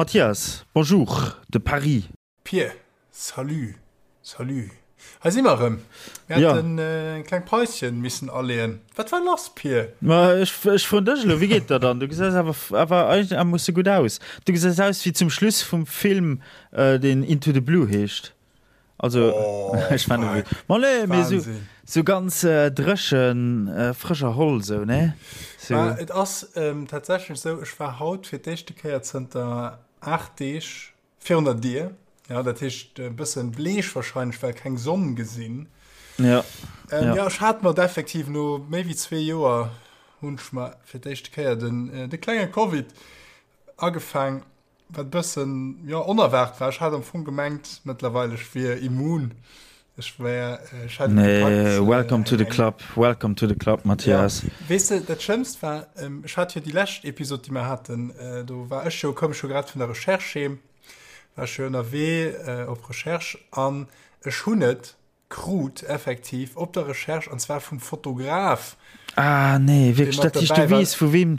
Mathias, bonjour de Paris. Pir, salut, salut. Hei si mer erëm. Mir haten eng kleng Päuschen missen aleeën. Wat war lass, Pir? Ma ech, ech froen dech elo, wéi geet der dann? Du gesäis awer, awer eigenermoosse gutt aus. Du gesäis aus wéi zum Schluss vum Film, deen Into the Blue heescht. Also, ech fannen, ma nee, mee sou, sou ganz dréchen, frësch erholl sou, ne? Sou. Ma et ass tatsächlech sou, ech war haut fir d'éischte Kéier zënter 8 Deeg Virun der Dier, ja, dat heescht e bëssen bleech wahrscheinlech, well keng Sonn gesinn. Ja. Ähm, ja. ja, ech hat mer effektiv no méi wéi zwee Joer hunn ech mer fir d'éischte Kéier den, äh, de klenge Covid agefaang, wat bëssen ja, onerwaart war. Ech hat am Fong gemengt mëttlerweil ech wier immun. Ech wär, ech hätt et Nee, gepackt, welcome to the club, welcome to the club, Mathias. Ja, weess de, dat Schlëmmst war, ech hat jo déi lescht Episod, déi mer haten, do war ech jo, koum ech jo grad vun der Recherche heem, war ech jo ënnerwee op Recherche an ech hunn et krut effektiv op der Recherche, an zwar vum Fotograf. Ah, nee, wierklech, dat heescht, du weess vu weem?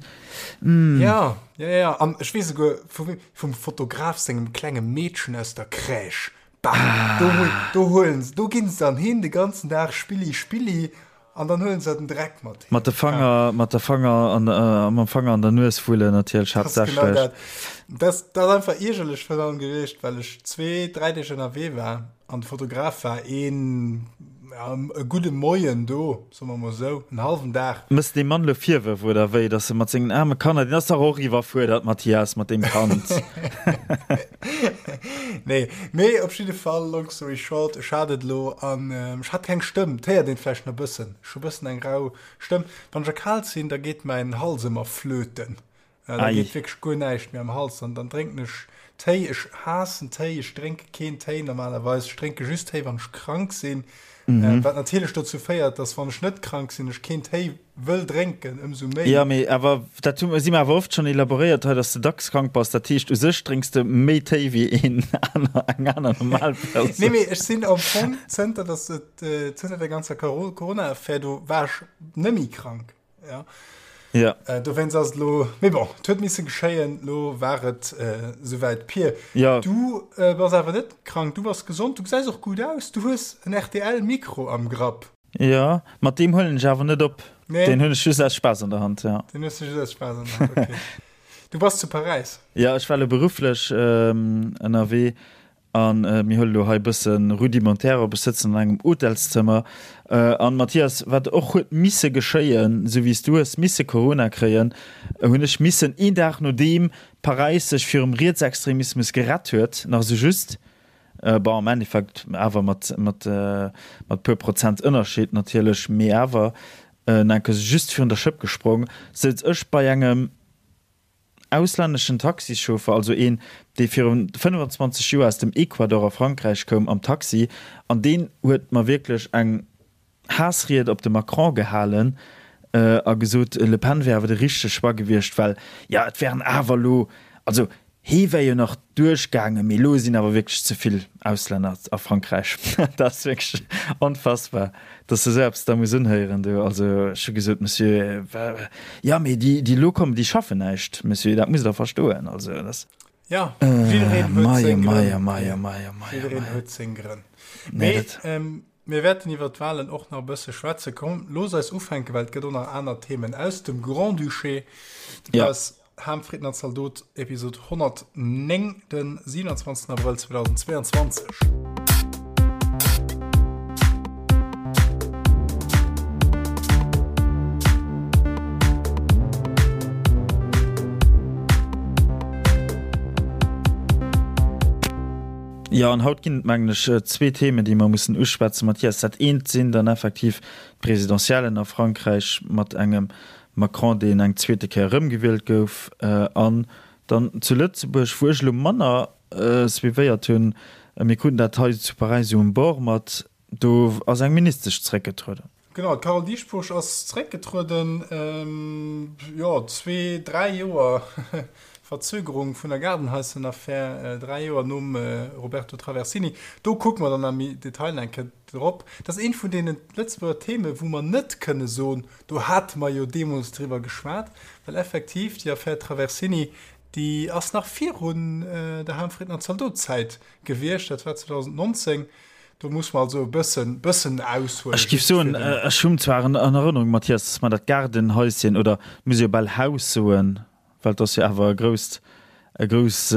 Ja, ja, ja, an ech weess esouguer vu weem, vum Fotograf sengem klenge Meedchen aus der Crèche. Bah, do, do huelen se, do ginn se dann hin de ganzen Dag Spilli, Spilli an dann huelen se den Dreck mat heem. Mat de Fanger, mat der Fanger an, äh, mam Fanger an der Nues wullen natierlech Das ist genau haaptsächlech. dat. Das, das ass einfach iergerlech virun allem gewiescht, well ech zwee, dräi Deeg ënnerwee war an de Fotograf war een, ja, e gudde Moien do, soe mer mol esou, en hallwen Dag. Mëss deem Mann lo Virwërf oder wéi, dass e mat sengen aarme Kanner, deen ass dach och iwwerfuerdert, Mathias, mat deem Kand. Nee, mee op jidde Fall, long story short, ech hat et elo an ech hat keng Stëmm. Et héiert een vläicht nach e bëssen. Ech hu e bëssen eng rau Stëmm. Wann ech erkalt sinn, da geet mäin Hals ëmmer flöten. Da geet wierklech guer näischt méi am Hals an dann drénken ech Téi. Ech haassen Téi, ech drénke keen Téi normalerweis. Ech drénke just Téi, wann ech krank sinn. Wat natierlech dozou féiert, dass wann ech net krank sinn, ech keen Téi wëll drénken, ëmsou méi. Jo, mee awer dat hu si mer awer oft schonn elaboréiert hei, dass de dacks krank bass. Dat heescht, u sech drénks de méi Téi wéi een aner, eng aner normal Persoun. Nee, mee ech sinn am Fong, zënter dass et, zënter der ganzer Corona-Affär do, war ech net méi krank, ja. Ja. Dowéinst ass et elo, mee bon, et huet misse geschéien, elo war et esouwäit. Pir, Ja. du bass awer net krank, du bass gesond, du gesäis och gutt aus, du hues en RTL-Mikro am Grapp. Jo, mat deem huelen ech awer net op. Nee. Deen hunn ech just aus Spaass an der Hand, ja. Deen hues du just aus Spaass an der Hand, okay. Du bass zu Paräis? Ja, ech war elo berufflech ënnerwee a mir huele lo hei e bësse rudimentär op. Ech sëtzen an engem Hotelszëmmer. An Mathias, wat och huet misse geschéien, esou wéi s du hues misse Corona kréien, hunn ech missen een Dag nodeem Paräis sech virum Rietsextremismus gerett huet, nach esou just, Bon, am Endeffekt awer mat, mat, mat puer Prozent Ënnerscheed natierlech, mee awer enke just virun der Schëpp gesprong, souz ech bei engem auslänneschen Taxichauffer, also een, dee virun 25 Joer aus dem Ecuador a Frankräich koum, am Taxi, an deen huet mer wierklech eng Haassried op de Macron gehalen a gesot, Le Pen wär awer de richtege Choix gewiescht, well, jo, et wären awer elo, also hee wär jo nach duerchgaangen, mee elo sinn awer wierklech ze vill Auslänner a Frankräich. Dat ass wierklech onfassbar, datt s de esou eppes da muss unhéieren do. Also ech hu gesot, Monsieur, jo, mee déi, déi elo kommen, déi schaffen näischt, Monsieur, dat musst Der verstoen. Also dat ass. Ja, jiddereen huet seng Grënn. Jiddereen huet seng Grënn. Mee Mir wäerten iwwert d'Wahlen och nach e bësse schwätzen. Komm, looss eis ufänken, well et gëtt och nach aner Themen aus dem Grand-Duché. Dat ass Ham, Fritten an Zaldot, Episod 109, den 27. Abrëll 2022. Jo, an haut ginn et, mengen ech, zwee Themen, déi mer mussen uschwätzen, Mathias. Dat eent sinn dann effektiv d'Presidentiellen a Frankräich mat engem Macron, deen eng zweete Kéier erëmgewielt gouf, an dann zu Lëtzebuerg, wou ech elo manner suivéiert hunn, mir kruten dat hei zu Paräis esou um Bord mat, do ass eng Ministesch zréckgetrueden. Genau, d'Carole Dieschbourg ass zeréckgetrueden. Jo, zwee, dräi Joer Verzögerung vun der Gaardenhaissenaffär, dräi Joer nom Roberto Traversini. Do kucke mer dann am Detail eng Kéier drop. Dat ass eent vun deene Lëtzebuerger Theme wou mer net kënne soen, do hate mer jo deemools driwwer geschwat, well effektiv déi Affär Traversini. Déi ass nach virun der Hahnfriedner Zaldot-Zäit gewiescht, dat war 2019. Do muss mer also e bëssen, bëssen aushuelen. Ech géif soen, ech hunn zwar an Erënnerung, Mathias, dass mer dat Gaardenhäuschen, oder muss ee jo bal Haus soen, well et ass jo awer e grousst, e grouss,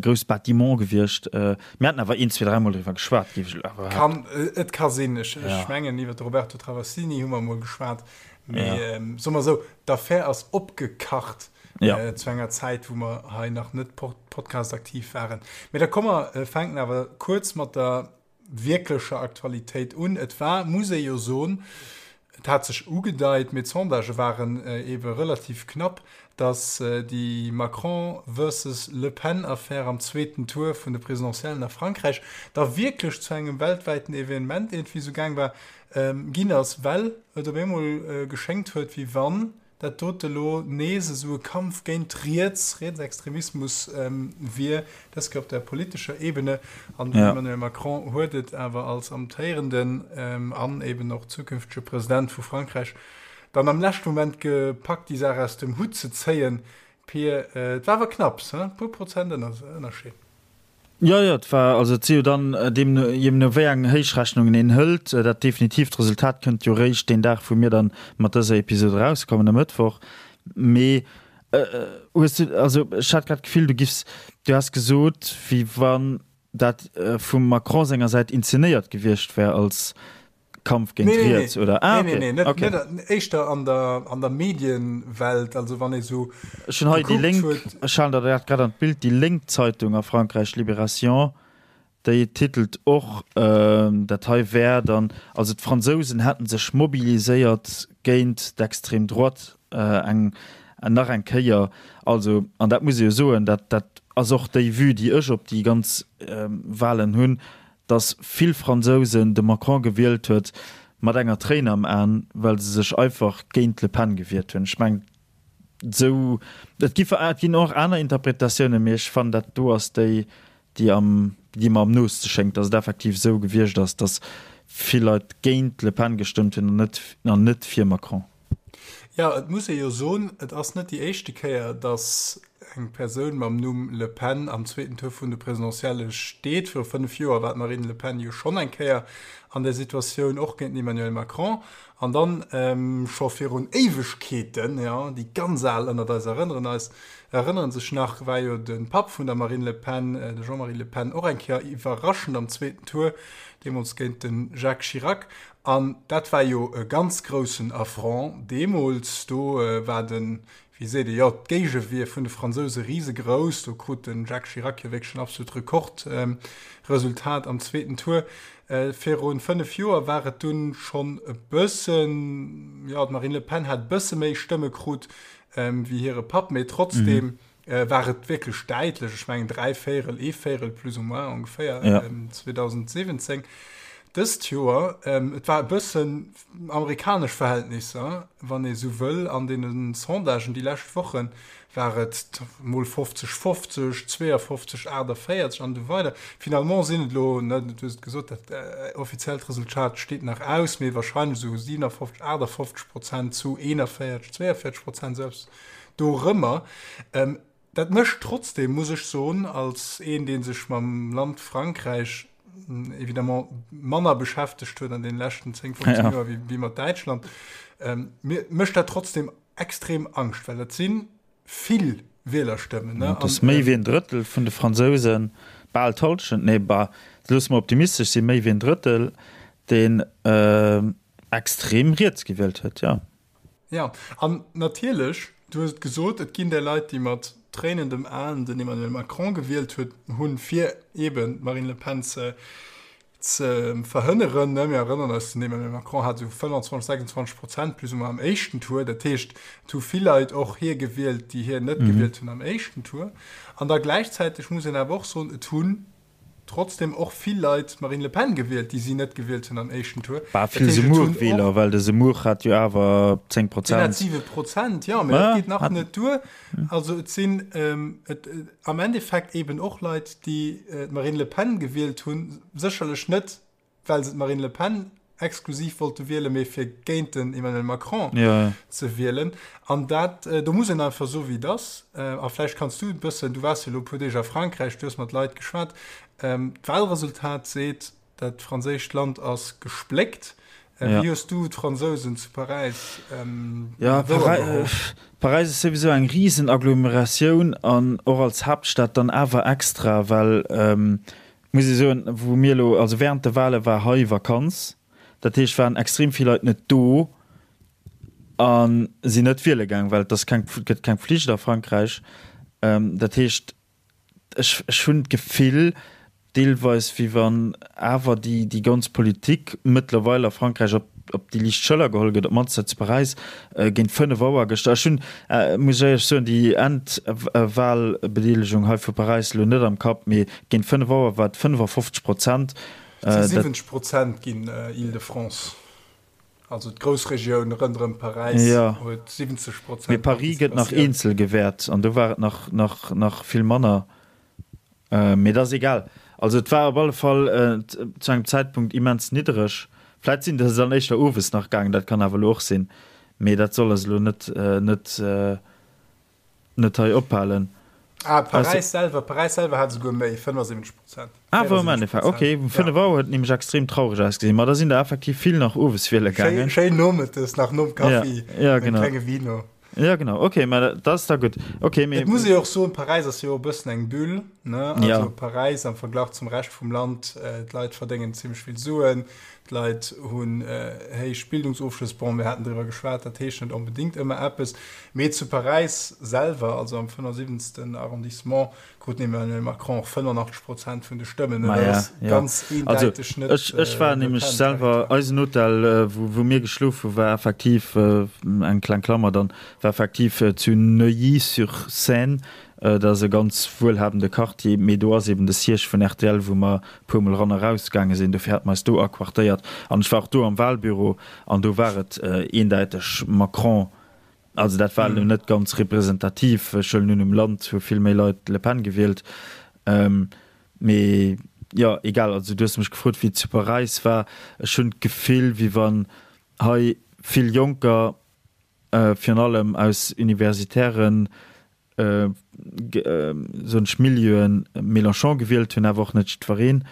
grousst Bâtiment gewiescht. Mir haten awer een, zwee, dräimol driwwer geschwat, géif ech elo awer behaapten. Kann, et ka sinn. Ech, ech mengen, iwwer de Roberto Travassini hu mer emol geschwat. Mee soe mer esou, d'Affär ass opgekacht zu enger Zäit, wou mer hei nach net Podcast-aktiv waren. Mee da komm mer fänken awer kuerz mat der wierklecher Aktualitéit un. Et war, muss ee jo soen, et hat sech ugedeit, mee d'Sondagë waren eebe relativ knapp, datt déi Macron versus Le Pen-Affär am zweeten Tour vun de Presidentiellen a Frankräich da wierklech zu engem weltwäiten Evenement iergendwéi esou gaang war, ginn ass, well et op eemol geschéngt huet, wéi wann dat dote lo nees esou e Kampf géint Riets, Rietsextremismus wier, dës Kéier op der politescher Ebene. An den Emmanuel Macron huet et awer als amtéierenden an eben och zukünftege President vu Frankräich dann am leschte Moment gepackt, déi Saach aus dem Hutt ze zéien. Pir, et war awer knapps, he? E puer Prozent Ënnerscheed. Jo, jo, et war, also et si jo dann deemno, jee no wéi eng Héichrechnungen een hëlt, dat definitiivt Resultat kënnt jo réischt deen Dag, wou mir dann mat dëser Episod erauskommen, e Mëttwoch. Mee hues du, also ech hat grad d'Gefill, du giffs, du häss gesot, wéi wann dat vum Macron senger Säit inzenéiert gewiescht wär als Kampf géint nee, Riets nee, oder ah, okay. Nee, nee, net, okay. net, éischter an der, an der Medienwelt, also wann ee sou Ech hunn hei déi Lénk, ech halen der dat grad an d'Bild, déi Lénk Zeitung a Frankräich, Libération, déi titelt och, dat hei wär dann, also d'Fransousen hätten sech mobiliséiert géint d'extrême droite eng nach eng Kéier. Also, an dat muss ee jo soen, dat dat ass och déi Vue, déi ech op déi ganz Wahlen hunn, dass vill Fransousen de Macron gewielt huet mat enger Tréin am An, well se sech einfach géint d'Le Pen gewiert hunn. Ech mengen, esou, et gi et ginn och aner Interpretatiounen, mee ech fannen, dat do ass déi, déi am, déi mer am nooste schéngt, dass et effektiv esou gewiescht ass, dass vill Leit géint d'Le Pen gestëmmt hunn an net, an net fir Macron. Jo, et muss ee jo soen, et ass net déi éischte Kéier, datt eng Persoun mam Numm Le Pen am zweeten Tour vun de Presidentielle steet. Viru 5 Joer war d'Marine Le Pen jo schonn eng Kéier an där Situatioun, och géint den Emmanuel Macron. An dann scho virun Éiwegkeeten, jo, déi ganz Al ënnert eis erënneren eis, erënneren sech nach, war jo de Papp vun der Marine Le Pen, de Jean-Marie Le Pen, och eng Kéier iwwerraschend am zweeten Tour, deemools géint de Jacques Chirac. An dat war jo e ganz groussen Affront deemools. Do war den, wéi seet ee, jo, d'Géigewier vun de Fransouse risegrouss. Do krut de Jacques Chirac jo wierklech en absolut Rekordresultat am zweeten Tour. Viru 5 Joer war et dunn schonn e bëssen, jo, d'Marine Le Pen hat e bësse méi Stëmme krut wéi hire Papp, mee trotzdeem war et wierklech däitlech, ech mengen 3 Véierel, ee Véierel plus ou moins ongeféier, ja. 2017. Dëst Joer, ähm, et war e bëssen amerikanesch Verhältnisser, wann ee sou wëll, an deene Sondagen déi lescht Wochen war et mol 50, 50, 52, 48 an esou weider. Finalement sinn et elo, ne, du hues et gesot, dat äh, offiziellt Resultat steet nach aus, mee wahrscheinlech esou 57, 58 Prozent zu 41, 42 Prozent, esou eppes. Dorëmmer. Dat mécht trotzdem, muss ech soen, als een, dee sech mam Land Frankräich évidemment manner beschäftegt huet an deene leschten 10, 15 Joer wéi mat Däitschland, mir mécht dat trotzdem extrem Angscht, well dat si vill Wielerstëmmen. Dat ass méi wéi en Drëttel vun de Fransousen, bal d'Hallschent, nee, bah, loosse mer optimistesch sinn, méi wéi en Drëttel, deen extrem riets gewielt huet, jo. Jo, an natierlech, du hues et gesot, et ginn där Leit, déi mat tréinendem Aen den Emmanuel Macron gewielt huet, hunn, fir eeben d'Marine Le Pen ze ze verhënneren. Mir erënneren eis, den Emmanuel Macron hat esou 25, 26 Prozent plus ou moins am éischten Tour. Dat heescht, et hu vill Leit och hie gewielt, déi hien net gewielt hunn am éischten Tour. An da gläichzäiteg muss een awer och soen, et hunn Trotzdem och vill Leit d'Marine Le Pen gewielt, déi si net gewielt hunn am éischten Tour. Bah, vill Zemmour-Wieler, well de Zemmour hat jo awer 10 Prozent. Deen hat 7 Prozent, jo, mä dat geet nach net duer. Also et sinn et am Endeffekt eben och Leit, déi d'Marine Le Pen gewielt hunn, sécherlech net, well se d'Marine Le Pen. exklusiv wollte wielen, mee fir géint den Emmanuel Macron ze wielen. An dat, do muss een einfach soen, wéi et ass. A vläicht kanns du e bëssen, du waars jo elo e puer Deeg a Frankräich, du hues mat Leit geschwat, d'Wahlresultat seet, dat franséischt Land ass gespléckt. Wéi hues du d'Fransousen zu Paräis wouergeholl? Paräis ass souwisou eng risen Agglomeratioun an och als Haaptstad dann awer extra, well muss ee soen, wou mir elo, also während de Wahle war hei Vakanz, dat heescht waren extrem vill Leit net do a sinn net wiele gaang, well et ass keng, gëtt keng Pflicht a Frankräich. Dat heescht, ech, ech hunn d'Gefill, deelweis wéi wann awer déi, déi ganz Politik mëttlerweil a Frankräich op, op déi liicht Schëller geholl gëtt, op d'mannst hei zu Paräis géint 5 Auer gëschter. Ech hunn, muss ech éierlech soen, déi Endwahlbedeelegung hei vu Paräis elo net am Kapp, mee géint 5 Auer war et 55 Prozent. Et si 70 Prozent ginn, Île-de-France, also d'Groussregioun ronderëm Paräis huet 70 Prozent Mee Paris gëtt nach eenzel gewäert an do war et nach, nach, nach vill manner. Mee dat ass egal. Also et war op alle Fall zu engem Zäitpunkt immens niddereg. Vläit sinn der se dann éischter owes nach gaangen, dat kann awer elo och sinn. Mee dat soll eis elo net, net, net hei ophalen. Ah, Paräis selwer, Paräis selwer hat esouguer méi, 75 Prozent. Ah, wou am Endeffekt, okay. Um 5 Auer huet et nämlech extrem traureg ausgesinn. Ma da sinn der effektiv vill nach owes wiele gaangen. Schéin, schéin nomëttes, nach nom Kaffi, ja, genau. Klenge Vino. Ja genau, okay, mä dat ass da gutt. Okay, mee. Et muss ee och soen, Paräis ass jo och e bëssen eng Bulle, ne? Also ja. Paräis am Verglach zum Rescht vum Land, äh, d'Leit verdéngen zimmlech vill Suen, d'Leit hunn äh, héich Bildungsofschlëss, bon, mir haten driwwer geschwat, dat heescht net onbedéngt ëmmer eppes, mee zu Paräis selwer, also am 75. Arrondissement, Krut den Emmanuel Macron och 85 Prozent vun de Stëmmen. Dat ass ganz eendeiteg net. Also ech war nämlech selwer, eisen Hotel, wou mir geschlof hu war effektiv, eng kleng Klammer dann, war effektiv zu Neuilly-sur-Seine. Dat ass e ganz wuelhabende Quartier, mee do ass eben de Siège vun rtl, wou mer e puer Mol eran a raus gaange sinn. Dofir hate mer eis do aquartéiert. An ech war och do am Wahlbüro an do war et eendäiteg Macron. Also dat war elo net ganz representativ. Ech huelen un, um Land hu vill méi Leit d'Le Pen gewielt. Mee jo, egal. Also du hues mech gefrot, wéi et zu Paräis war. Ech hunn d'Gefill, wéi wann hei vill Jonker, virun allem aus universitären soen ech, Milieuen Mélenchon gewielt hunn, awer och net jiddwereen.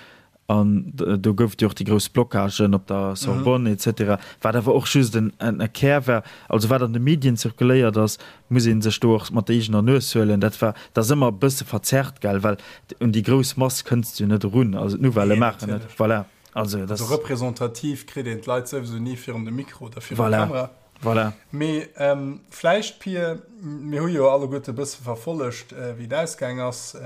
An do gouf et jo och déi grouss Blockagen op der Sorbonne et cetera, wat awer och just en Kär war. Also wat an de Medien zirkuléiert ass, muss ee sech do och mat der eegener Nues huelen. Dat war, dat ass ëmmer e bësse verzerrt, gell, well un déi grouss Mass kënns de jo net erun. Also d'Nouvellë maachen et, voilà. Also dat. Also representativ kritt een d'Leit souwisou ni virun de Mikro oder virun d'Kamera. Voilà. Mee vläicht, Pir, mir hu jo alleguerte e bësse verfollegt, wéi et ausgaang ass.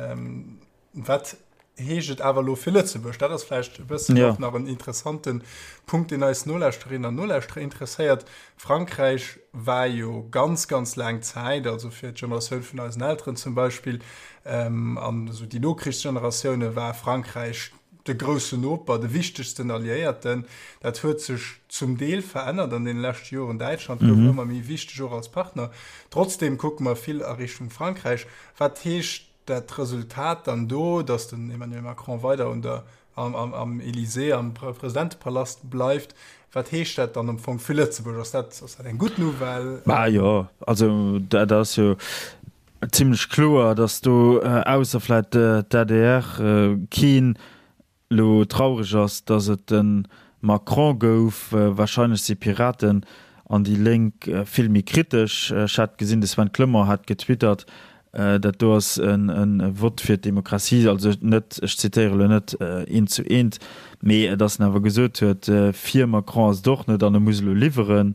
Wat heescht et awer elo fir Lëtzebuerg? Dat ass vläicht e bëssen och nach en interessante Punkt, deen eis Nolauschterinnen an Nolauschterer interesséiert. Frankräich war jo ganz, ganz laang Zäit, also fir d'Generatioun vun eisen Elteren zum Beispill an esou déi Nokrichsgeneratioune war Frankräich de groussen Noper, de wichtegsten Alliéierten. Dat huet sech zum Deel verännert an deene leschte Joren. Däitschland gouf ëmmer méi wichteg, och als Partner. Trotzdeem kucke mer vill a Richtung Frankräich. Wat heescht dat Resultat dann do, datt den Emmanuel Macron weider un der, am, am, am Élysée, am Presidentepalast bleift? Wat heescht dat dann am Fong fir Lëtzebuerg? Ass dat, ass dat eng gutt Nouvelle? Bah jo, also dat ass jo Zimlech kloer, datt do, ausser vläit d'ADR, keen elo traureg ass, datt et de Macron gouf. Wahrscheinlech si Piraten an déi Lénk vill méi kritesch. Ech hat gesinn, de Sven Clement hat getwittert, dat do ass e Vott fir d'Demokratie, also net, ech zitéiere elo net eent zu eent, mee datt en awer gesot huet, fir Macron ass et och net an e muss elo liwweren.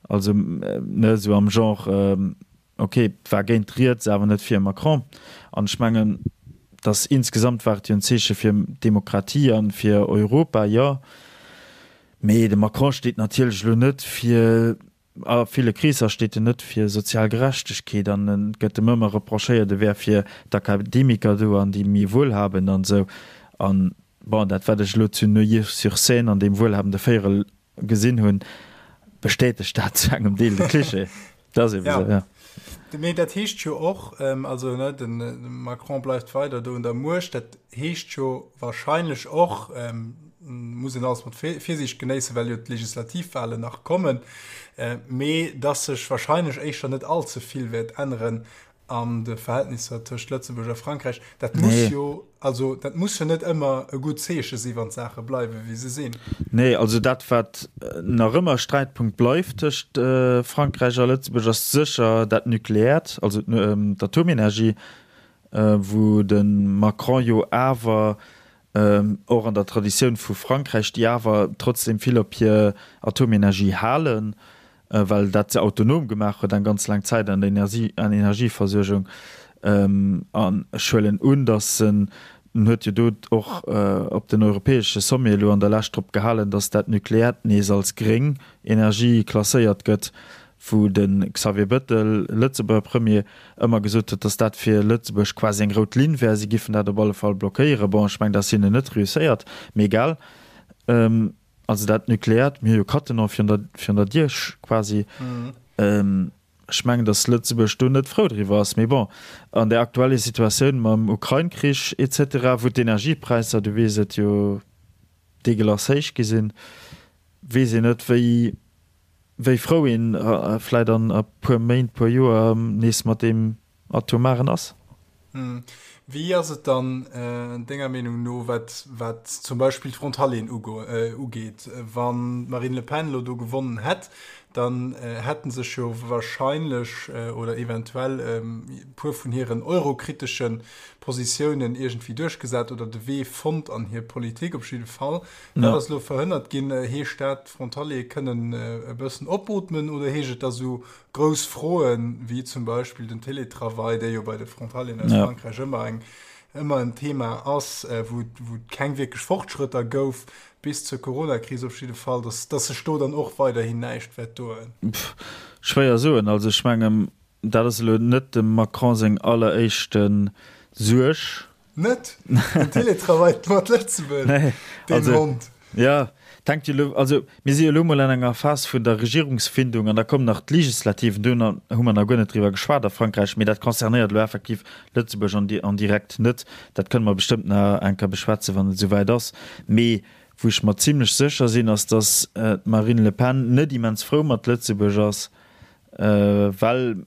Also, ne, esou am Genre, Ok, et war géint riets, awer net fir Macron. An ech mengen, dass insgesamt war et jo en Zeeche fir d'Demokratie a fir Europa, jo. Mee de Macron steet natierlech elo net fir, a ville Kreesser steet en net fir sozial Gerechtegkeet an et gëtt em ëmmer reprochéiert, e wär fir d'Akademiker do an déi méi Wuelhabend an esou. An bon, dat wat ech elo zu Neuilly-sur-Seine an deem wuelhabende Véierel gesinn hunn, bestätegt dat zu engem Deel de Klischee. Dat ass eben esou, ja. Mee dat heescht jo och, also ne, de Macron bleift weider do un der Muecht, dat heescht jo wahrscheinlech och, Muss een alles mat Virsiicht genéissen, well jo d'Legislativwahlen nach kommen, mee dass sech wahrscheinlech éischter net all ze vill wäert änneren an de Verhältnisser tëscht Lëtzebuerg a Frankräich. Dat muss jo, also dat muss jo net ëmmer e gutt Zeeche si wann d'Saache bleiwe wéi se sinn. Nee, also dat wat nach ëmmer Sträitpunkt bleift tëscht Frankräich a Lëtzebuerg ass sécher dat Nukleäert, also d'Atomenergie, wou de Macron jo awer och an der Traditioun vu Frankräich, déi awer trotzdem vill op hir Atomenergie halen, well dat se autonom gemaach huet eng ganz laang Zäit an der Energieversuergung. An ech huelen un, datt en, en huet jo do och op den europäesche Sommet elo an der Lescht drop gehalen, datt dat Nukleäert nees als gréng Energie klasséiert gëtt, wou de Xavier Bettel, Lëtzebuerger Premier, ëmmer gesot huet, datt dat fir Lëtzebuerg quasi eng rout Linn wär, si giffen dat op alle Fall blockéieren. Bon, ech mengen, dat ass hinnen net reusséiert, mee egal. Also dat Nukleäert, mir hu jo Cattenom virun der, virun der Dier quasi. Ech mengen, datt Lëtzebuerg do net frou driwwer ass. Mee bon, an der aktuelle Situatioun mam Ukrain-Krich et cetera, wou d'Energiepräisser, du weess et jo, deegelass héich gi sinn, weess een net, wéi, wéi frou een vläit an e puer Méint, puer Joer nees mat deem Atomaren ass. Wéi ass et dann denger Meenung no, wat wat zum Beispill d'Frontalieren ugeet? Wann d'Marine Le Pen elo do gewonnen hätt, dann hätte sech jo wahrscheinlech oder eventuell e puer vun hiren eurokritesche Positiounen iergendwéi duerchgesat oder de Wee fonnt an hir Politik op jidde Fall. Dat ass elo verhënnert ginn. Heescht dat, d'Frontaliere kënnen e bëssen opootmen oder heescht et, datt esou grouss Froen, wéi zum Beispill den Télétravail, dee jo bei de Frontalieren aus Frankräich ëmmer eng, ëmmer en Thema ass, wou et keng wierklech Fortschrëtter gouf, bis zur Coronakris op jidde Fall, datt, datt sech do dann och weiderhin näischt wäert doen? Schwéier soen. Also ech mengen, dat ass elo net dem Macron seng alleréischte Suerg. Net? Den Télétravail mat Lëtzebuerg? Nee, Deen also, Hond. Ja, et hänkt jo elo, also mir si jo elo mol an enger Phas vun der Regierungsfindung an da kommen nach d'Legislativen, do hu mer nach guer net driwwer geschwat a Frankräich, mee dat concernéiert elo effektiv Lëtzebuerg an en direct net. Dat kënne mer bestëmmt nach eng Kéier beschwätzen, wann et esouwäit ass. Mee wou ech mer zimlech sécher sinn, ass, datt d'Marine Le Pen net immens frou mat Lëtzebuerg ass, well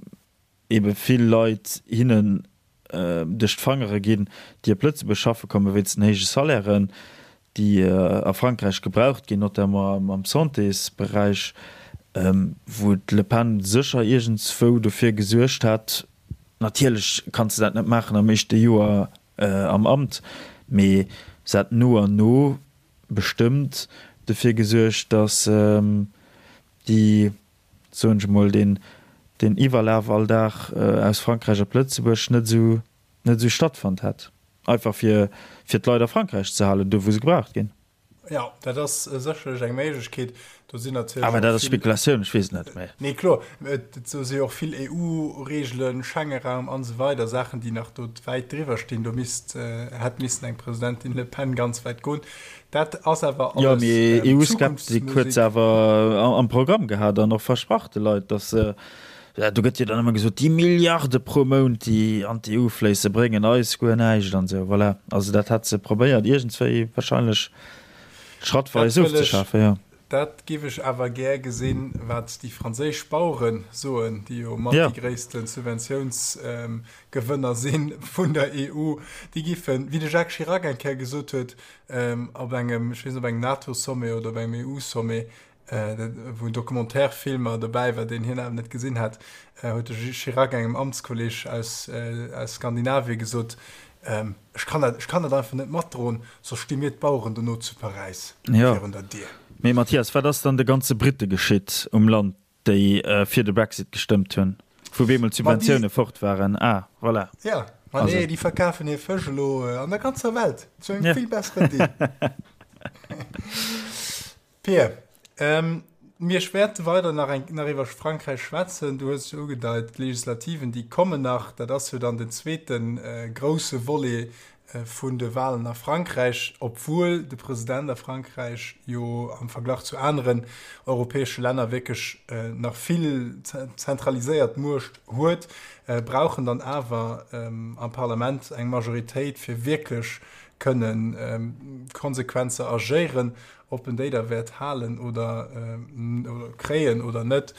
ebe vill Leit hinnen duerch d'Fangere ginn, déi op Lëtzebuerg schaffe kommen, wéinst den héije Salairen, déi a Frankräich gebraucht ginn, notamment am Santésberäich, wou d'Le Pen sécher iergendswou dofir gesuergt hätt, natierlech kanns de dat net maachen am éischte Joer am Amt, mee se hätt no an no bestëmmt dofir gesuergt, datt déi soen ech emol, deen, deen Iwwerlaf all Dag aus Frankräich op Lëtzebuerg net esou, net esou stattfonnt hätt. Einfach fir, fir d'Leit a Frankräich ze halen, do wou se gebraucht ginn. Jo, dat ass sécherlech eng Méiglechkeet. Do sinn natierlech Awer och dat ass vill. Spekulatioun, ech weess et net, mä. Nee, kloer. Et do si jo och vill EU-Reegelen, Schengenraum an esou weider, Saachen, déi nach do wäit driwwer stinn. Do misst, hätt missen eng Presidentin Le Pen ganz wäit goen. Dat ass awer Jo, alles mee EU-Skeptik huet se Zukunftsmusik. awer am Programm gehat an och versprach de Leit, datt se, do gëtt jo dann ëmmer gesot, déi Milliarde pro Mount, déi an d'EU fléisse, bréngen eis guer näischt an esou. Voilà, also dat hat se probéiert iergendswéi wahrscheinlech Dat schrattweis wëll ech, ofzeschafen, jo. dat giff ech awer gär gesinn, wat déi franséisch Bauere soen, déi jo mat Jo. déi gréisste Subventiounsgewënner si vun der EU. Déi giffen, wéi de Jacques Chirac eng Kéier gesot huet, op engem, ech weess net, op engem NATO-Sommet oder op engem EU-Sommet, wou en Documentaire-Filmer dobäi war, deen hien awer net gesinn hat, huet de Chirac engem Amtskolleg aus, aus Skandinavien gesot, Ech kann dat, ech kann dat einfach net matdroen, soss sti mir d'Baueren dono zu Paräis virun der Dier. Mee Mathias, wat ass dann de ganze Britte geschitt um Land? Déi fir de Brexit gestëmmt hunn, wou bemol d'Subventioune fort waren. Ah, voilà. Ja, ma nee, déi verkafen hir Fësch elo an der ganzer Welt zu engem vill besseren Deal. Pir, mir wäerte weider nach eng, nach iwwer Frankräich schwätzen. Du hues et jo ugedeit, d'Legislativen, déi kommen nach. Dat ass jo dann den zweete grousse Volet vun de Walen a Frankräich, obwuel de President a Frankräich jo am Verglach zu aneren europäesche Länner wierklech nach vill zentraliséiert Muecht huet, brauch en dann awer am Parlament eng Majoritéit, fir wierklech. Kënnen konsequent ze agéieren. Ob en déi da wäert halen oder kréien oder net,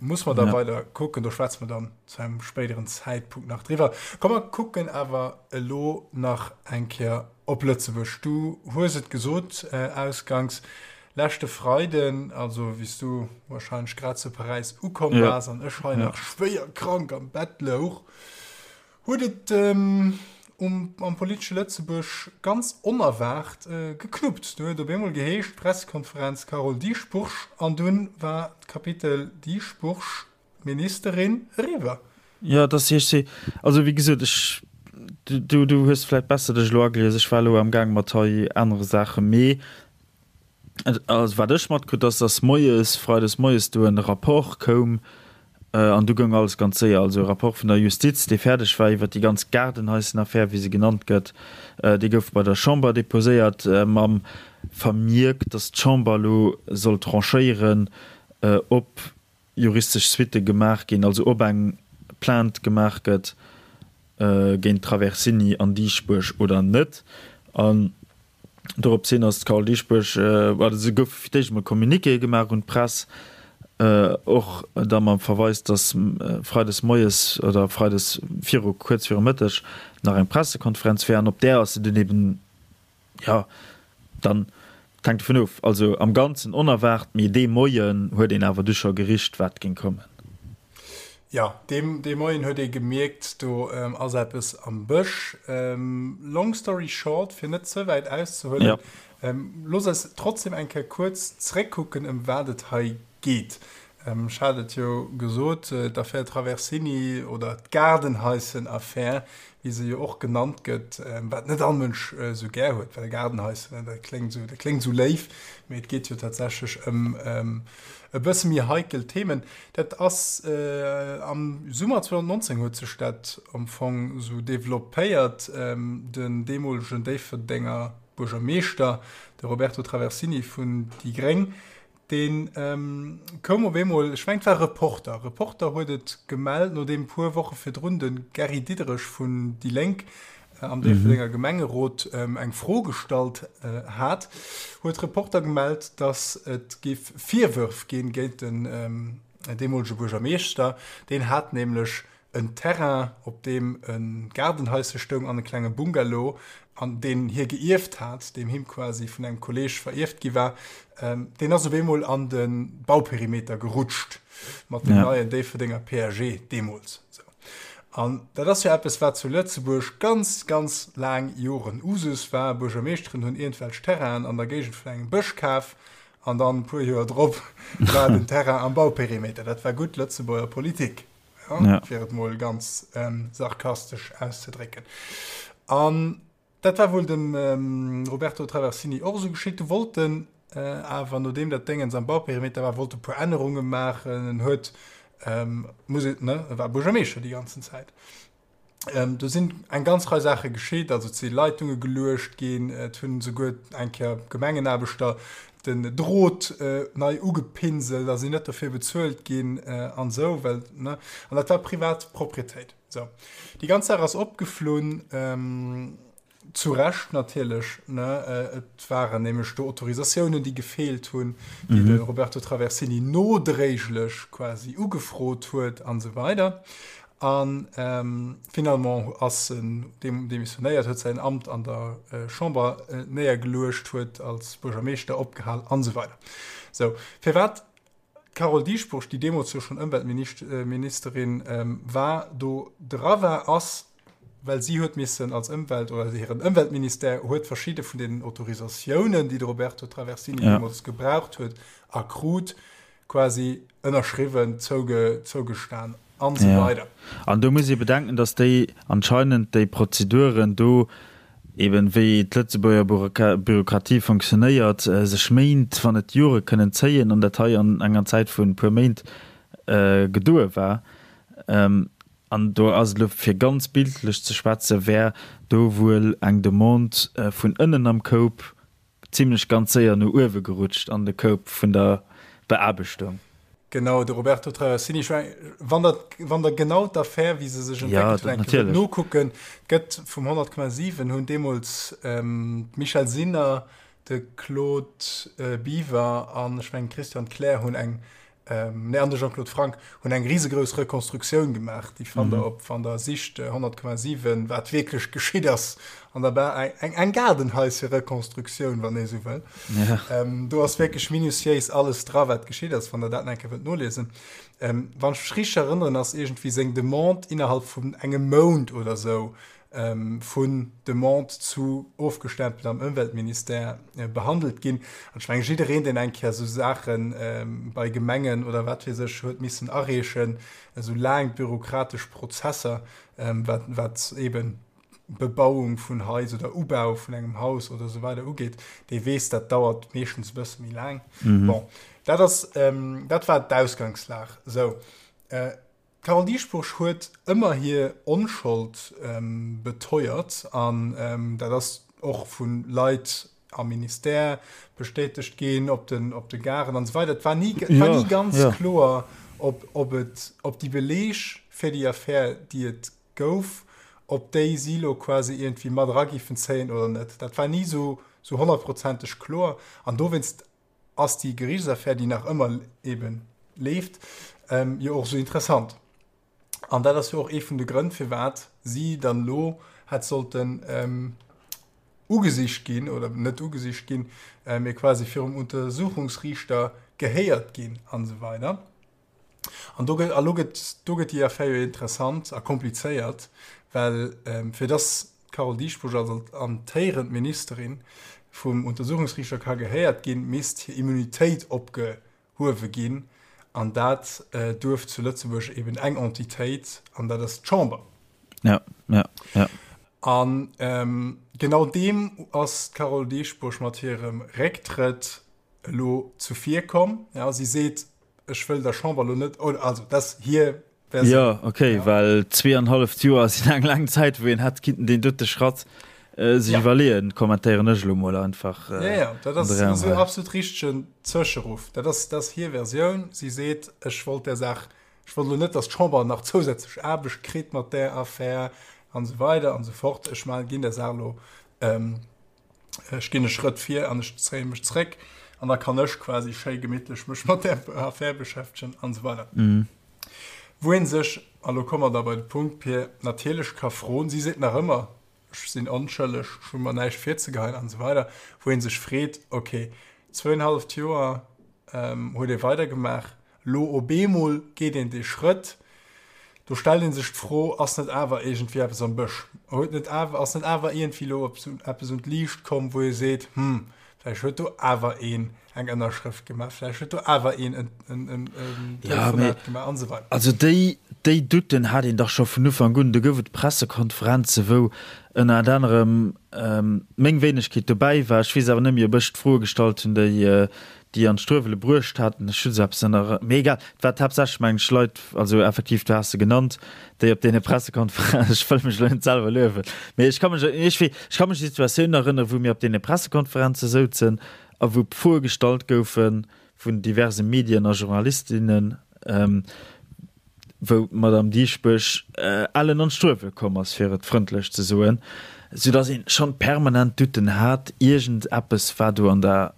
muss mer da weider kucken. Do schwätze mer dann zu engem spéideren Zäitpunkt nach driwwer. Komm mer kucken awer elo nach eng Kéier op Lëtzebuerg. Du hues et gesot ausganks, leschte Freiden, also wéi s du warscheinlech grad zu Paräis ukomm waars an ech hei nach schwéier krank am Bett louch, Huet et um am politesche Lëtzebuerg ganz onerwaart geknuppt. Du huet op eemol geheescht, Pressekonferenz Carole Dieschbourg an dunn war d'Kapitel Dieschbourg, Ministerin eriwwer. Jo, et ass hir. Also wéi gesot, ech, du, du hues vläicht besser dech elo agelies, ech war elo amgaang mat hei anere Saachen, mee Also wat ech matkritt ass, dass moies, freides moies do en Rapport koum an du goung alles ganz séier. Also e Rapport vun der Justiz, dee fäerdeg war iwwert déi ganz Gaardenhaissenaffär, wéi se genannt gëtt, dee gouf bei der Chamber deposéiert mam Vermierk, dass d'Chamber elo soll tranchéieren, ob juristesch Suitte gemaach ginn, also ob eng Plainte gemaach gëtt géint Traversini an Dieschbourg oder net. An Dorops hin ass d'Carole Dieschbourg, oder se gouf fir d'éischt emol Communiquéë gemaach un d'Press, och da mam Verweis, datt freides moies oder freides viru kuerz viru Mëtteg nach eng Pressekonferenz wär. An op där ass se dunn eben, jo, dann, et hänkt dovun of, also am Ganzen onerwaart, mee dee Moien huet een awer du scho gericht, wat géing kommen. Jo, dee Moien huet ee gemierkt, do ass eppes am Bësch. Long story short, fir net ze wäit auszehuelen, looss eis trotzdem eng Kéier kuerz zréckkucken, ëm wat et hei geet. Ech hat et jo gesot, d'Affär Traversini oder d'Gaardenhaissenaffär, wéi se jo och genannt gëtt, wat net all Mënsch esou gär huet, well Gaardenhaissen, dat kléngt esou, dat kléngt esou léif, mee et geet jo tatsächlech ëm e bësse méi heikel Themen. Dat ass am Summer 2019 huet sech dat am Fong esou developpéiert. Den deemolegen Déifferdenger Buergermeeschter, de Roberto Traversini vun déi Gréng, dee koum op eemol, ech mengen et war Reporter, Reporter huet et gemellt, nodeem e puer Woche virdrun de Gary Diderich vun déi Lénk am Déifferdenger Gemengerot eng Fro gestallt hat, huet Reporter gemellt, datt et géif Virwërf ginn géint den deemolege Buergermeeschter. Deen hat nämlech en Terrain, op deem e Gaardenhaische stoung an e klenge Bungalow, an deen hie geierft hat, deem him quasi vun engem Kolleeg verierft gi war. Deen ass op eemol an de Bauperimeter gerutscht mat dem neien Déifferdenger PAG deemools. An dat ass jo eppes, wat zu Lëtzebuerg ganz, ganz laang Joren Usus war. Buergermeeschteren hunn iergendwelch Terrainen an der Géigend vun engem Bësch kaf an dann e puer Joer drop war den Terrain am Bauperimeter. Dat war gutt Lëtzebuerger Politik, ja, fir et mol ganz sarkastesch auszedrécken. An Dat war wuel dem Roberto Traversini och esou geschitt. Du wollt en awer, nodeem dat Déngens am Bauperimeter war, wollt e puer Ännerunge maachen. En huet, muss een, ne, e war Buergermeeschter déi ganzen Zäit. Do sinn eng ganz Rei Saache geschitt, also et si Leitunge geluecht ginn, et hunn esouguer eng Kéier Gemengenaarbechter den Drot nei ugepinselt a sinn net dofir bezuelt ginn an esou, well, ne, an dat war privat Proprietéit. Sou, déi ganz Saach ass opgeflunn, zu Recht natierlech, ne? Et waren nämlech do Autorisatiounen, déi gefeelt hunn, déi de Roberto Traversini nodréiglech quasi ugefrot huet an esou weider. A finalement ass en demissionéiert, huet säin Amt an der Chamber néiergeluecht, huet als Buergermeeschter opgehal an esou weider. Sou, firwat D'Carole Dieschbourg, déi deemools jo schonn Ëmweltministerin war, do dra war, ass, well si huet missen als Ëmwelt oder hiren Ëmweltministère huet verschidde vun deenen Autorisatiounen, déi de Roberto Traversini deemools gebraucht huet a krut, quasi ënnerschriwwen, zougestan an esou weider. An do muss ee bedenken, datt déi anscheinend déi Prozeduren do Eben wéi d'Lëtzebuerger Bürokratie fonctionnéiert, sech Méint, wann net Jore kënnen zéien, an dat hei an enger Zäit vun e puer Méint gedoe war. An do ass et elo, fir ganz bildlech ze schwätzen, wär do wuel eng Demande vun ënnen am Koup zimlech ganz séier no uewe gerutscht an de Koup vun der Beaarbechtung. Genau, de Roberto Traversini. Ech meng, wann der, wann der genau d'Affär, wéi se sech entwéckelt huet, eng Kéier wëllt nokucken, gëtt vum 100,7 hunn deemools d'Michèle Sinner, de Claude Biver an ech mengen d'Christiane Kleer hunn eng, nee, an de Jean-Claude Franck hunn eng risegrouss Rekonstruktioun gemaach. Déi fannt der op, wann der sicht 100,7, wat wierklech geschitt ass an der Bar. Eng, eng Gaardenhaische-Rekonstruktioun, wann ee sou wëll. Ja. Ähm, do ass wierklech minutiéis alles dra, wat geschitt ass, wann der dat eng Kéier wëllt noliesen. Ähm, wann ech mech richteg erënneren, ass iergendwéi seng Demande innerhalb vun engem Mount oder sou ähm, vun Demande zu ofgestempelt am Ëmweltministère äh, behandelt ginn. An ech mengen, jiddereen, deen eng Kéier sou Saachen ähm, bei Gemengen oder wat weess ech huet missen areechen, esou laang bürokratesch Prozesser, ähm, wat, wat eben Bebauung vun Hais oder Ubau vun engem Haus oder esou weider ugeet, dee weess, dat dauert meeschtens e bësse méi laang. Mhm. Bon, dat ass, ähm, dat war d'Ausgangslag. Sou, äh, d'Carole Dieschbourg huet ëmmer hir Onschold ähm, beteuert an ähm, dat ass och vu Leit am Ministère bestätegt ginn, op den, op de Garen an esou weider. Et war ni, et war ni ganz ja. kloer, ob, ob, et, ob déi Beleeg fir déi Affär, déi et gouf, ob déi si lo quasi iergendwéi mat era giffen zéien oder net. Dat war ni sou sou honnertprozenteg kloer an dowéinst ass déi Geriichtsaffär, déi nach ëmmer eebe leeft, jo och sou interessant. An dat ass jo och ee vun de Grënn, firwat si dann elo hätt sollten ugesicht ginn, oder net ugesicht ginn, mee quasi virum Untersuchungsriichter gehéiert ginn an esou weider. An do gëtt, a lo gëtt, do gëtt déi Affär jo interessant a komplizéiert, well fir dass d'Carole Dieschbourg als amtéierend Ministerin vum Untersuchungsriichter ka gehéiert ginn, misst hir Immunitéit opgehuewe ginn. An dat duerf zu Lëtzebuerg eben eng Entitéit, an dat ass d'Chamber. Ja, ja, ja. An genau deem ass d'Carole Dieschbourg mat hirem Récktrëtt elo zuvir komm. Ja, si seet, Ech wëll der Chamber elo net, oder also dat ass hir Versioun. Jo, okay, ja. Well zweeanhalleft Joer sinn eng laang Zäit, wou een hätt kinnten deen dote Schratt äh, sech ja. iwwerleeën, kommentéieren ech elo mol einfach. Äh, ja, ja, dat ass en absolut richtegen Zwëscheruff. Dat ass, dat ass hir Versioun. Si seet, ech wollt där Saach, ech wollt elo net, datt d'Chamber nach zousätzlech Aarbecht kritt mat där Affär an esou weider an esou fort. Ech man, ginn der Saach elo ähm, Ech ginn e Schrëtt vir an ech zéie mech zréck an da kann ech quasi schéi gemittlech mech mat där Affär beschäftegen an esou weider. Wou ee sech, a lo komme mer da bei de Punkt, Pir, natierlech ka froen, si seet nach ëmmer, ech sinn onschëlleg, ech hu mer näischt virzegeheien an esou weider, wou ee sech freet, okay, zwouenhalleft Joer huet ee weidergemaach, Lo op eemol geet een dee Schrëtt, do stellt ee sech d'Fro, ass net awer iergendwéi eppes am Bësch? Huet net awer, ass net awer iergendwéi elo eppes un d'Liicht komm, wou ee seet, hm, vläicht huet do awer een eng Ënnerschrëft gemaach, vläicht huet do awer een en Telefonat gemaach an esou weider. Also déi, déi Douten hat een dach scho vun Ufank un. Do gouf et Pressekonferenze wou ënnert anerem meng Wéinegkeet dobäi war. Ech weess awer net méi, ob ech d'Froe gestallt hunn, déi déi an d'Struewele bruecht haten. Ech hunn esou eppes an der, mee egal, et war haaptsächlech, mengen ech, Leit, also effektiv, du has se genannt, déi op deene Pressekonferenzen, ech wëll mech elo net selwer luewen, mee ech ka mech, ech wee, ech ka mech un déi Situatioun erënneren, wou mir op deene Pressekonferenze souzen a wou Froe gestallt goufe vun diverse Medien a Journalistinnen, wou d'Madame Dieschbourg ellen an d'Struewele komm ass, fir et frëndlech ze soen, soudass een schonn permanent Douten hat, iergend eppes war do an der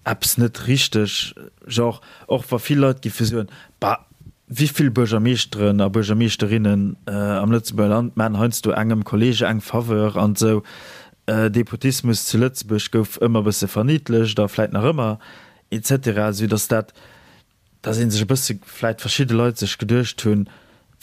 eppes net richteg. Genre, och wa vill Leit giffe soen, Bah, wéi vill Buergermeeschteren a Buergermeeschterinnen am Lëtzebuerger Land maachen heiansdo engem Kollege eng Faveur an esou. Depotismus zu Lëtzebuerg gouf ëmmer e bësse verniddlecht a vläit nach ëmmer, et cetera, soudass dat dass ee sech e bësse, vläit verschidde Leit sech geduecht hunn,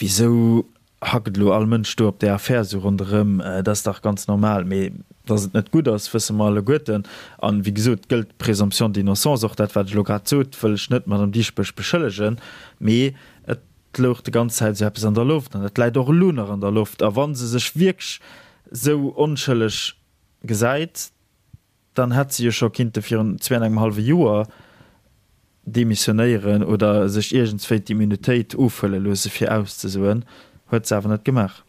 Wisou hackt elo all Mënsch do op där Affär esou ronderëm? Dat ass dach ganz normal. Mee dass et net gutt ass, wësse mer alleguerten. An, wéi gesot, gëllt d'Présomption d'innocence. Och dat, wat ech elo grad sot, wëll ech net d'Madame Dieschbourg beschëllegen, mee et louch déi ganz Zäit esou eppes an der Loft an dat läit och elo nach an der Loft. A wa se sech wierklech esou onschëlleg gesäit, Dann hätt se jo scho kinnte virun zwee an engem hallwe Joer demissionéieren oder sech iergendswéi d'Immunitéit ofhuele loosse fir auszesoen. Huet se awer net gemaach.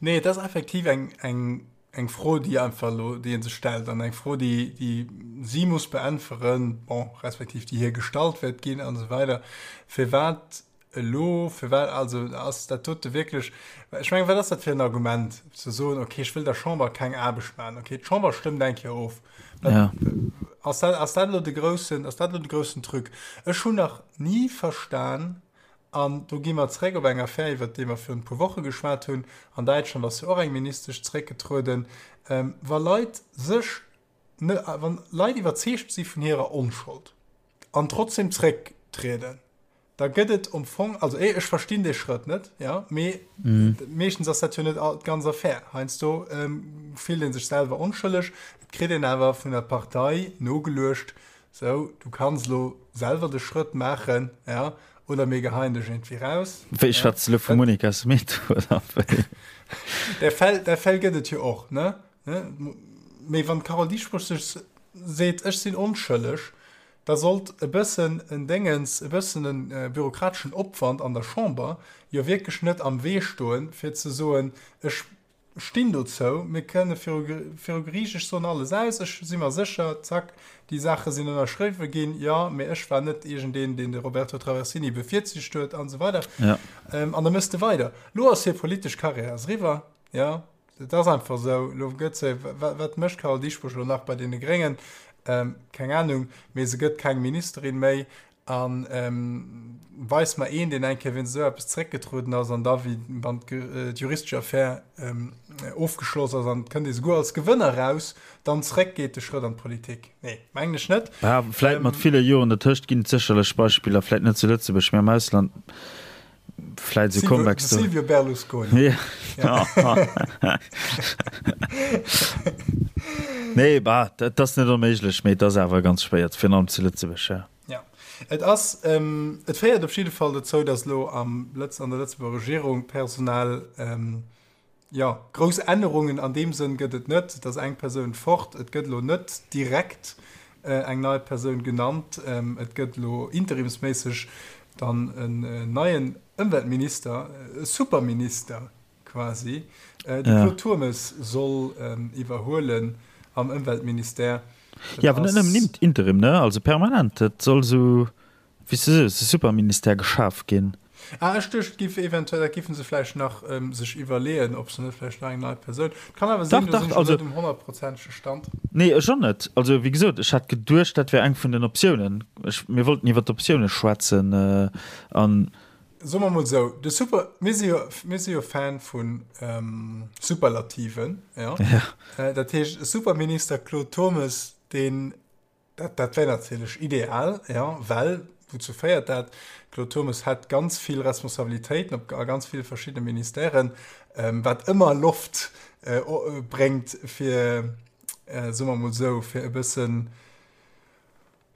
Nee, et ass effektiv eng, eng, Eng Fro, déi einfach elo, déi ee sech stellt an eng Fro, déi, déi si muss beäntweren, bon, respektiv déi hir gestallt wäert ginn an esou weider. Firwat elo, firwat, also ass dat dote wierklech, ech mengen, wat ass dat fir en Argument, ze soen, okay, ech wëll der Chamber keng Aarbecht maachen, okay, d'Chamber stëmmt eng Kéier of. Ja. Ass dat, ass dat elo de groussen, ass dat elo de groussen Truc? Ech hunn nach ni verstan, An do gi mer zréck op eng Affär, iwwert déi mer virun e puer Woche geschwat hunn. An Däitschland ass jo och eng Ministesch zréckgetrueden. Wa Leit sech, wa Leit iwwerzeegt si vun hirer Onschold an trotzdem zrécktrieden, da gëtt et am Fong, also ech verstinn dee Schrëtt net, jo, mee meeschtens ass dat jo net d'ganz Affär. Heiansdo fillt ee sech selwer onschëlleg, et kritt een awer vun der Partei nogeluecht, Sou, du kanns elo selwer de Schrëtt maachen, ja, oder mir geheien dech iergendwéi raus. Wéi, schwätz de elo vum Monica Smith, oder wéi? Där Fäll, där Fäll gëtt et jo och, ne? Mee wann d'Carole Dieschbourg sech seet, ech sinn onschëlleg, da sollt e bëssen en Déngens, e bëssen e bürokrateschen Opwand an der Chamber jo wierklech net am Wee stoen, fir ze soen, ech stinn dozou, mir kënne viru viru Geriicht, ech soen alles aus, ech si mer sécher, zack, déi Saache sinn ënnerschriwwe ginn, jo, mee ech war net iergendeen, deen de Roberto Traversini bevirzicht huet an esou weider. Ja. An da méchs de weider. Elo ass hir politesch Karriär ass eriwwer, jo, et ass einfach esou, elo gëtt se, wat mécht d'Carole Dieschbourg elo nach bei deene Gréngen? Keng Anung, mee se gëtt keng Ministerin méi A weis mer een, deen eng Kéier wéinst esou eppes zeréckgetrueden ass an da, wéi wann d'juristesch Affär ofgeschloss ass an et kënnt ee souguer als Gewënner eraus, dann zeréckgeet de Schrëtt an d'Politik. Nee, mengen ech net. Bah, vläit mat ville Joren dertëscht ginn et sécherlech Beispiller, vläit net zu Lëtzebuerg, mä am Ausland. Vläit esou Comebacks do. Silvio Berlusconi. Ja. Nee, bah, dat ass net onméiglech, mee et ass awer ganz schwéier, virun allem zu Lëtzebuerg, ja. Ja, et ass, et féiert op jidde Fall dozou, datt elo am Lëtz, an der Lëtzebuerger Regierung personell, jo, grouss Ännerungen an deem Sënn gëtt et net. Et ass eng Persoun fort, et gëtt elo net direkt eng nei Persoun genannt. Et gëtt elo interimsméisseg dann en neien Ëmweltminister, e Superminister quasi. De Claude Turmes soll iwwerhuelen am Ëmweltministère. Jo, awer net nëmmen Interim, ne? Also permanent. Et soll esou, wéi s de sees, e Superministère geschaf ginn. Ah, ech duecht, et giff eventuell, dat giffen se vläicht nach sech iwwerleeën, ob se net vläicht nach eng nei Persoun. Et kann awer sinn, do sinn ech net um honnertprozentege Stand. Nee, ech och net. Also, wéi gesot, ech hat geduecht, dat wär eng vun den Optiounen. Ech, mir wollten iwwer d'Optioune schwätzen an. Soe mer mol esou, de Super, mir si jo, mir si jo Fan vu Superlativen, jo. Ja. Dat heescht, e Superminister Claude Turmes, deen, dat, dat wär natierlech ideal, jo, well, wouzou féiert dat? Claude Turmes hätt ganz vill Responsabilitéiten op, a ganz ville verschiddene Ministèren, wat ëmmer Loft bréngt fir, soe mer mol esou, fir e bëssen,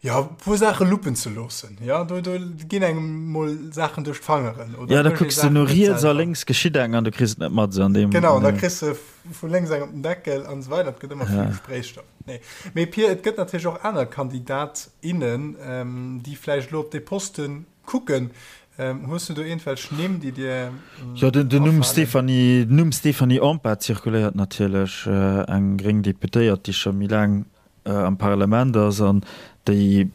Jo, e puer Saache luppen ze loossen. Jo, do, do ginn engem mol Saachen duerch d'Fangeren. Oder ja, da kucks du no riets a lénks geschitt eng an du kriss et net mat. An deem, genau, an da kriss du vu lénks eng op den Deckel an esou weider. Et gëtt ëmmer vill ja. Gespréichstoff. Nee. Mee Pir, et gëtt natierlech och aner Kandidat, innen, ähm, déi vläicht elo op dee Poste kucken. Ähm, hues du do iergendwelch Nimm, déi dir ähm, Jo, den, den Numm Stéphanie, den Numm Stéphanie Empain zirkuléiert natierlech, äh, eng gréng Deputéiert, déi scho méi laang am Parlament ass an déi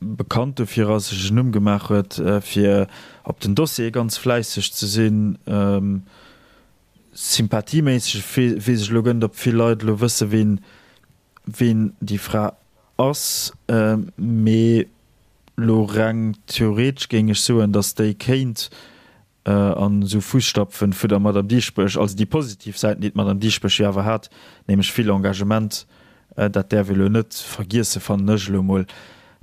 bekannt dofir ass, sech en Numm gemaach huet, fir op den Dossiere ganz fläisseg ze sinn. Sympathieméisseg weess ech elo guer net, ob vill Leit elo wësse ween ween déi Fra ass, mee elo reng theoretesch géing ech soen, datt déi kéint an esou Fusstapfen vu der Madame Dieschbourg, also déi positiv Säiten, déi d'Madame Dieschbourg jo awer hat, nämlech vill Engagement, dat däerf ee lo net vergiessen, fannen ech elo emol,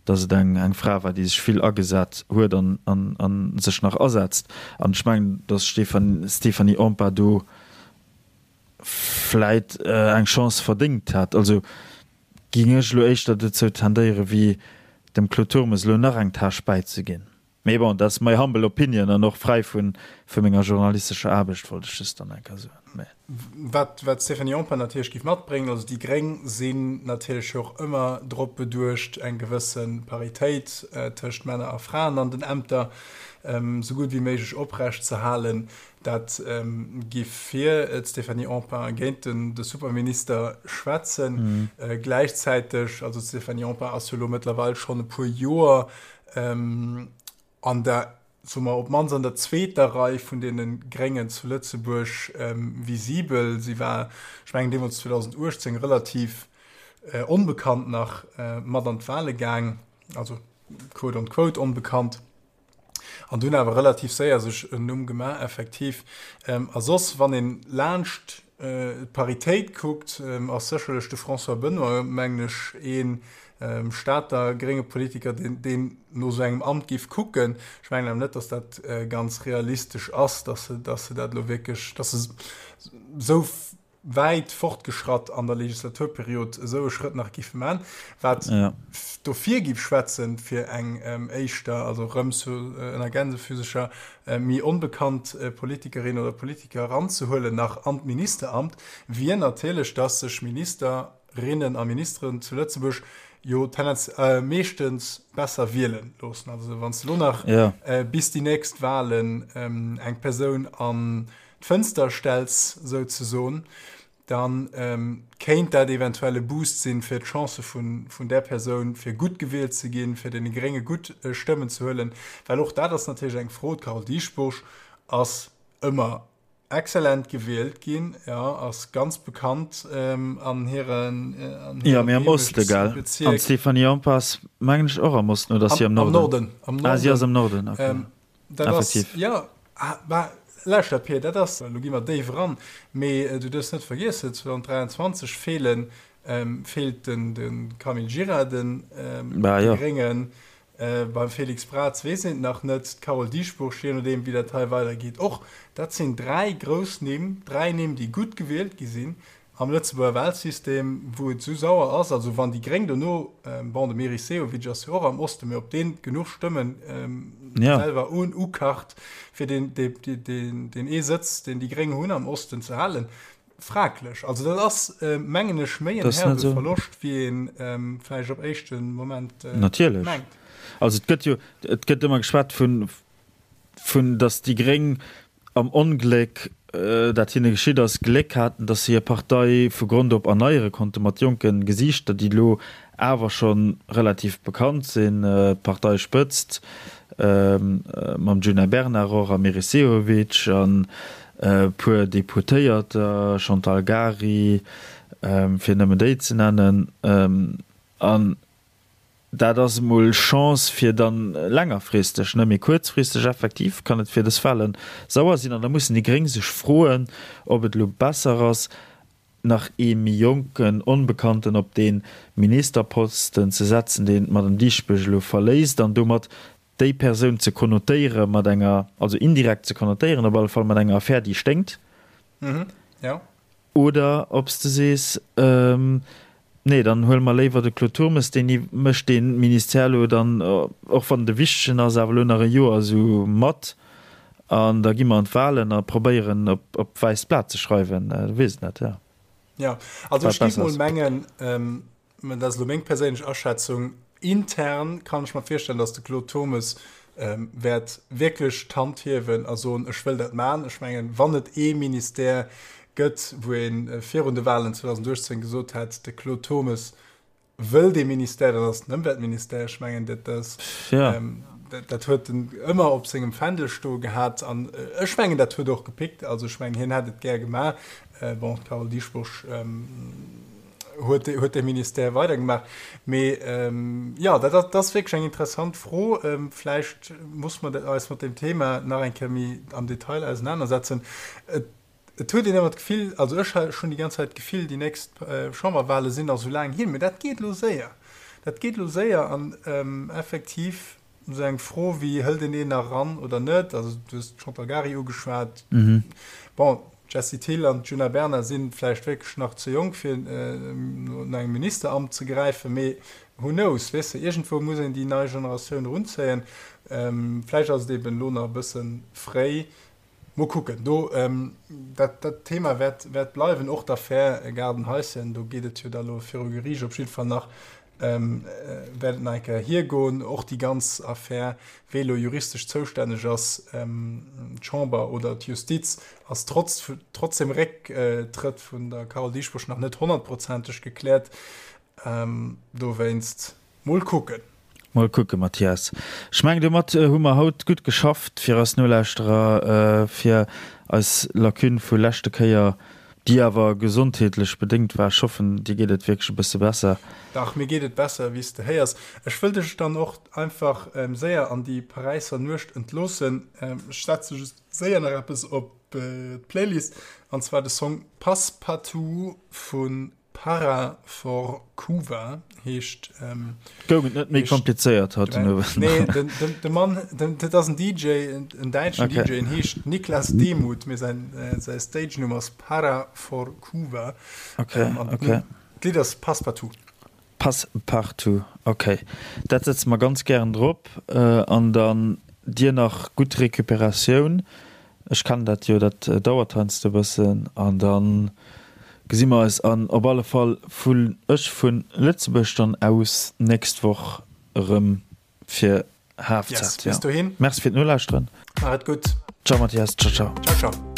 dass et eng eng Fra war, déi sech vill agesat huet an an sech nach asetzt. An ech mengen, dass d'Stéphanie Empain do vläit eng Chance verdéngt hätt. Also géing ech elo éischter dozou tendéieren, wéi dem Claude Turmes elo nach eng Tâche bäizeginn. Mee bon, dat ass my humble opinion an och fräi vu vu menger journalistescher Aarbecht, wollt ech just dann eng Kéier soen. Mee. Wat wat d'Stéphanie Empain natierlech géif matbréngen, also déi Gréng sinn natierlech jo och ëmmer drop beduecht, eng gewësse Paritéit tëscht Männer a Fraen an den Ämter esou gutt wéi méiglech oprecht ze halen. Dat giff fir d'Stéphanie Empain a géint de Superminister schwätzen. Gläichzäiteg, also d'Stéphanie Empain ass jo elo mëttlerweil schonn e puer Joer an der, soe mer, op d'mannst an der zweeter Rei vun deene Gréngen zu Lëtzebuerg visibel. Si war, ech mengen deemools 2018, relativ onbekannt nach mat an d'Wale gaang, also quote on quote onbekannt. An dunn awer relativ séier sech en Numm gemaach, effektiv. A soss, wann een laanscht d'Paritéit kuckt, ass sécherlech de François Benoy, mengen ech, ee Stater grénge Politiker, deen no esou engem Amt géif kucken. Ech mengen awer net, datt dat ganz realistesch ass, datt se dat elo wierklech, datt se esou wäit fortgeschratt an der Legislaturperiod esou e Schrëtt nach giffe man, wat dofir giff schwätzen, fir eng éischter, also erëm zu ënner Gänsefüsecher, méi onbekannt Politikerin oder Politiker eranzehuelen nach an d'Ministeramt, wier natierlech, dass sech Ministerinnen a Ministeren zu Lëtzebuerg jo tendenz meeschtens besser wielen loossen. Also wann s de elo nach bis déi nächst Wahlen eng Persoun an d'Fënster stells souzesoen, da kéint dat eventuell e Boost sinn, fir d'Chancë vun där Persoun, fir gutt gewielt ze ginn, fir deene Grénge gutt Stëmmen ze huelen. Well och dat ass natierlech eng Fro, D'Carole Dieschbourg ass ëmmer exzellent gewielt ginn, jo, ass ganz bekannt an hiren Jo, mee am Oste, gell? An d'Stéphanie Empain ass, mengen ech, och am Osten, oder ass si am Norden? Am Norden, am Norden. Ah, si ass am Norden, okay. Dat ass, jo, mä lauschter Pir, dat ass, elo gi mer déif eran, mee du duerfs net vergiessen, 2023 feelen, feelt de Camille Gira de Gréngen, beim Félix Braz weess een et nach net, d'Carole Dieschbourg, je nodeem wéi dat hei weidergeet och. Dat sinn dräi grouss Nimm, dräi Nimm, déi gutt gewielt gi sinn, Am Lëtzebuerger Wahlsystem, wou et esou sauer ass, also wann déi Gréng dono, bon, de Meris Sehovic ass jo och am Osten, mee ob deen genuch Stëmmen selwer ukacht, fir deen ee Sëtz, deen déi Gréng hunn am Osten, ze halen, fraglech. Also dat ass, mengen ech, méi en herbe Verloscht, wéi ee vläicht op éischte Moment mengt. Natierlech. Also et gëtt jo, et gëtt ëmmer geschwat vun, vun datt déi Gréng am Ongléck, dat hinne geschitt ass, Gléck haten, datt se hir Partei vu Grond op erneiere konnte mat jonke Gesiichter, déi elo awer scho relativ bekannt sinn. D'Parteispëtzt mam Djuna Bernard och a Meris Sehovic an e puer Deputéierter, Chantal Gary, fir nëmmen déi ze nennen. An Dat ass emol Chance fir dann längerfristeg, ne, mee kuerzfristeg effektiv kann et fir dës Wahlen sauer sinn. An da mussen déi Gréng sech froen, ob et elo besser ass, nach ee méi jonken Onbekannten op dee Ministerposten ze setzen, deen d'Madame Dieschbourg elo verléisst, an domat déi Persoun ze konnotéiere mat enger, also indirekt ze konnotéieren op alle Fall mat enger Affär, déi sténkt. Oder ob s de sees, Nee, dann huele mer léiwer de Claude Turmes, deen mécht dee Ministère elo dann, och wann et e wichtegen ass, awer elo nach e Joer esou mat an da gi mer an d'Wahlen a probéieren op d'wäisst Blat ze schreiwen. Du weess et net, jo. Jo, also ech géif mol mengen, Mä dat ass elo meng perséinlech Aschätzung. Intern kann ech mer virstellen, datt de Claude Turmes wäert wierklech d'Hand hiewen a soen, ech wëll dat maachen. Ech mengen, wann et ee Ministère gëtt, wou ee virun de Wahlen 2018 gesot hätt, de Claude Turmes wëll dee Ministère, dann ass et den Ëmweltministère. Ech mengen, dat ass, dat huet en ëmmer op sengem Fändel stoe gehat. An ech mengen, dat huet och gepickt. Also ech mengen, hien hätt et gär gemaach. Bon, d'Carole Dieschbourg huet huet de Ministère weidergemaach. Mee jo, dat dat ass wierklech eng interessant Fro. Vläicht muss mer eis mat deem Thema nach eng Kéier méi am Detail ausenanersetzen. Et et huet een ëmmer d'Gefill, also ech hunn déi ganz Zäit d'Gefill, déi nächst Chamberwahle sinn nach esou laang hin, mee dat geet elo séier. Dat geet elo séier an effektiv esou eng Fro wéi, hëlt een een nach eran oder net, also du hues d'Chantal Gary ugeschwat, bon. D'Jessie Thill an d'Djuna Bernard si vläicht wierklech nach ze jonk, fir no engem Ministeramt ze gräifen, mee who knows, weess de, iergendwou muss een déi nei Generatioun erunzéien. Vläicht ass et eben elo nach e bësse fréi. Mol kucken. Do, dat, dat Thema wäert, wäert bleiwen, och d'Affär Gaardenhaischen, do geet et jo da lo viru Geriicht op jidde Fall nach, wäert et nach eng Kéier hiergoen. Och déi ganz Affär, wee lo juristesch zoustänneg ass, d'Chamber oder d'Justiz, ass trotz, trotz dem Récktrëtt vun der Carole Dieschbourg nach net honnertprozenteg gekläert. Dowéinst, mol kucken. Mol kucken, Mathias. Ech mengen, domat hu mer haut gutt geschafft fir eis Nolauschterer, fir eis Lacune vu leschte Kéier, déi awer gesondheetlech bedéngt war. Ech hoffen, dir geet et wierklech e bësse besser. Dach, mir geet et besser, wéi s de héiers. Ech wëll dech dann och einfach séier an déi Paräisser Nuecht entloossen. Ech setze just séier nach eppes op d'Playlist, an zwar de Song Passepartout vu Para for Cuba heescht. Ähm, Goung et net méi komplizéiert haut den Owend? Nee, den, den, de Mann, den, dat ass en DJ, en däitschen okay. DJ, en heescht Niklas Demuth, mee säin, äh, säi Stage-Numm ass Para for Cuba. Okay, ähm, okay. D'Lidd ass Passepartout. Passepartout, okay. Dat setze mer ganz gären drop. Äh, an dann dir nach gutt Recuperatioun. Ech kennen dat jo, dat dauert heiansdo e bëssen. An da gesi mer eis an op alle Fall vun ech vu Lëtzebuerg dann aus nächst Woch erëm fir Halfzeit. Yes, bis dohin. Merci fir d'Nolauschteren. Maacht et gutt. Ciao Mathias, ciao ciao. Ciao ciao.